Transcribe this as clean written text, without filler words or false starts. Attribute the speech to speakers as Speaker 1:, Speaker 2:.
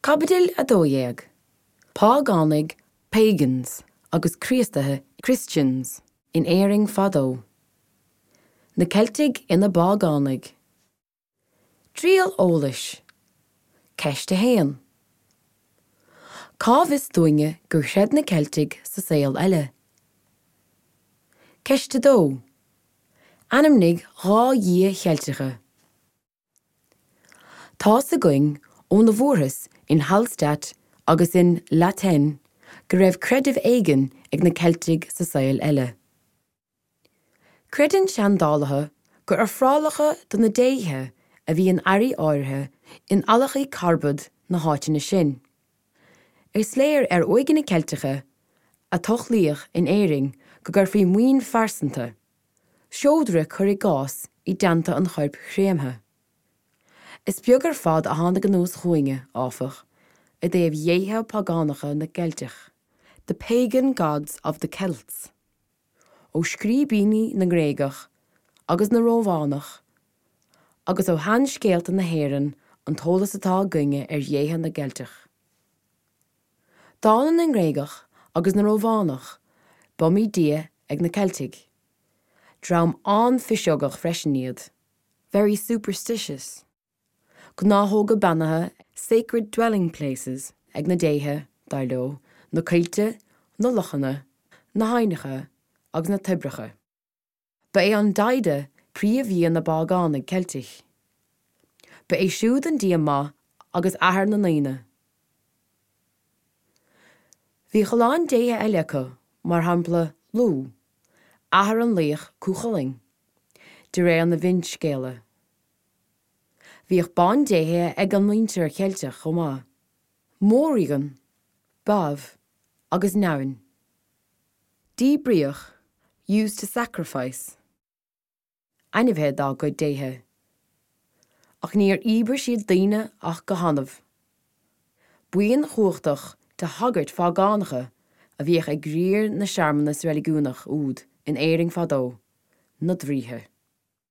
Speaker 1: Caibidil 12, Págánaigh Pagans agus Críostaithe Christians in Éirinn fadó. Na Ceiltigh ina bpágánaigh. Triail eolais. Ceist 1. Cá bhfios dúinne gur chreid na Ceiltigh sa saol eile? Ceist 2. Ainmnigh 2 dhia Cheilteacha. Tá's againn óna bhfuarthas in Hallstatt agus in La Tène go raibh creideamh éigin ag na Ceiltigh sa saol eile. Creideann seandálaithe gur ofrálacha do na déithe a bhí in earraí áirithe in adhlacthaí carbad na háiteanna sin. Is léir ar uaigheanna Ceilteacha a tochlaíodh in Éirinn go gcuirfí maoin phearsanta, seodra cuir i gcás, i dteannta an choirp chréamtha. Is beag ar fad a tháinig anuas chugainne, áfach, i dtaobh dhéithe págánacha na gCeilteach, the pagan gods of the Celts, ó scríbhinní na nGréagach agus na Rómhánach agus ó sheanscéalta na hÉireann an t-eolas atá againne ar dhéithe na gCeilteach. Dála na nGréagach agus na Rómhánach, b'iomaí dia ag na Ceiltigh. Dream an-phiseogach freisin iad. Very superstitious. Gnáthóga beannaithe sacred dwelling places ag na déithe, dar leo, na coillte, na lochanna, na haibhneacha agus na toibreacha. Ba é an Daghda príomhdhia na bpágánaigh Ceiltigh. Ba é siúd an dia maith agus athair na ndaoine. Bhíodh a lán déithe eile acu, mar shampla Lugh, athair an laoich Cú Chulainn, de réir na bhfinscéalta. Bhíodh bandéithe ag an muintir Cheilteach chomh maith, Morrígan, Badb agus Nemain. Díbríodh, used to sacrifice. ainmhithe dá gcuid déithe. Ach níor íobair siad daoine ach go hannamh. Buíon chumhachtach de shagairt phágánacha a bhíodh ag riar na searmanas reiligiúnach úd in Éirinn fadó, na draoithe.